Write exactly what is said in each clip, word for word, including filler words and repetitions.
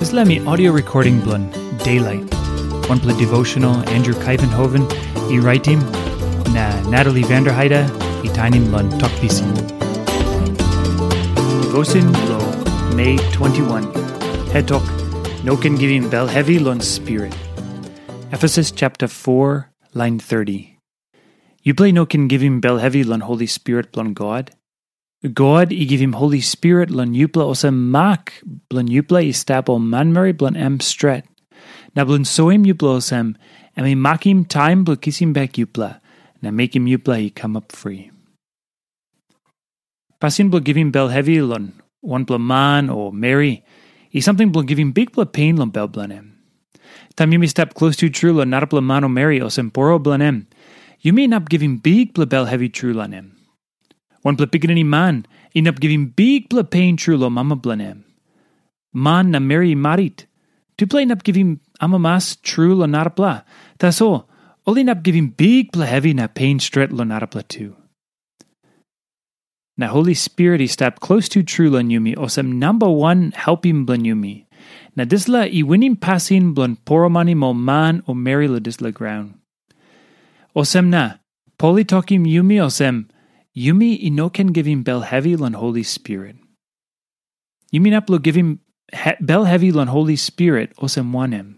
Dispela mi audio recording bilong Daylight, wanpela devotional Andrew Kaivenhoven i raitim, na Natalie Vanderheide i tainim long Tok Pisin. Devotion long May twenty-one. Hetok, no ken givim bel hevi long spirit. Efesus chapter four, line thirty. Yupela no ken givim bel hevi long Holy Spirit bilong God. God i givim Holi Spirit long yupela olsem mak bilong yupela i stap ol manmeri bilong em stret, na bilong soim yupela olsem em i makim taim bilong kisim bek yupela na mekim yupela i kamap fri. Pasin bilong givim bel hevi long wanpela man o meri i samting bilong givim bikpela pen long bel bilong em. Taim yumi stap klostu tru long narapela man o meri olsem poro bilong em, yumi inap givim bikpela bel hevi tru long em. Wanpela pikinini man inap givim bikpela pen tru long mama bilong em. Man na meri i marit, tupela inap givim amamas tru long narapela. Tasol ol inap givim bikpela hevi na pen stret long narapela tu. Na Holi Spirit i stap klostu tru long yumi olsem namba wan helpim bilong yumi. Na dispela i winim pasin bilong poromanim ol man o meri long dispela graun. Olsem na, Pol i tokim yumi olsem, yumi i no ken givim bel hevi long Holi Spirit. Yumi inap long givim he- bel hevi long Holi Spirit olsem wanem?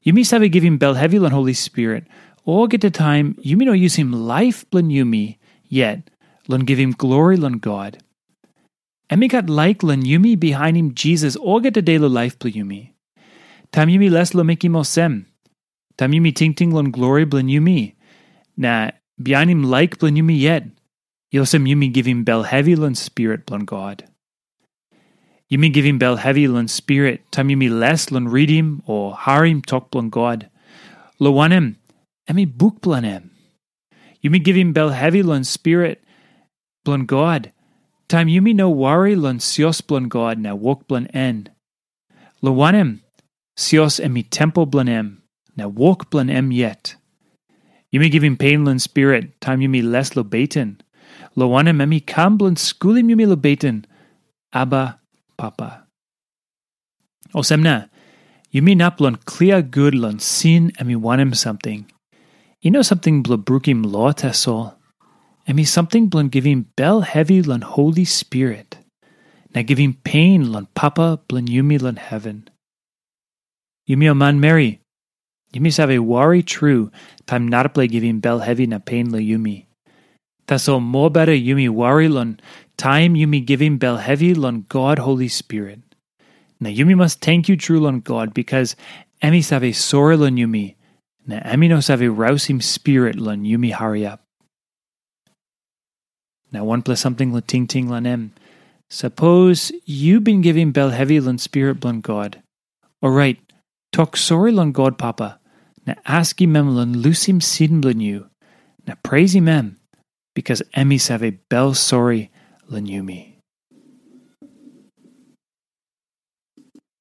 Yumi save givim bel hevi long Holi Spirit olgeta taim yumi no yusim laip bilong yumi yet long givim glori long God. Em i gat laik long yumi bihainim Jisas olgeta de long laip bilong yumi. Taim yumi les long mekim olsem, taim yumi tingting long glori bilong yumi, na bihainim laik bilong yumi yet, i olsem yumi givim bel hevi long Spirit bilong God. Yumi givim bel hevi long Spirit taim yumi les long ritim o harim tok bilong God, long wanem, em i buk bilong em. Yumi givim bel hevi long Spirit bilong God taim yumi no wari long sios bilong God na wok bilong en. Long wanem, sios em i tempel bilong em, na wok bilong em yet. Yumi givim pen long Spirit taim yumi les long beten, long wanem, em i kam bilong skulim yumi long beten, Aba, Papa. Olsem na, yumi inap long klia gut long sin em i wanem samting. I no samting bilong brukim lo tasol. Em i samting bilong givim bel hevi long Holi Spirit, na givim pen long Papa bilong yumi long heven. Yumi ol manmeri, yumi save wari tru taim narapela i givim bel hevi na pen long yumi. Tasol mobeta yumi wari long taim yumi givim bel hevi long God Holi Spirit. Na yumi mas tenkyu tru long God, bikas em i save sori long yumi, na em i no save rausim spirit long yumi hariap. Na wanpela samting long tingting long em. Sapos yu bin givim bel hevi long Spirit bilong God, orait, tok sori long God Papa, na askim em long lusim sin bilong yu, na preisim em, bikas em i save bel sori long yumi.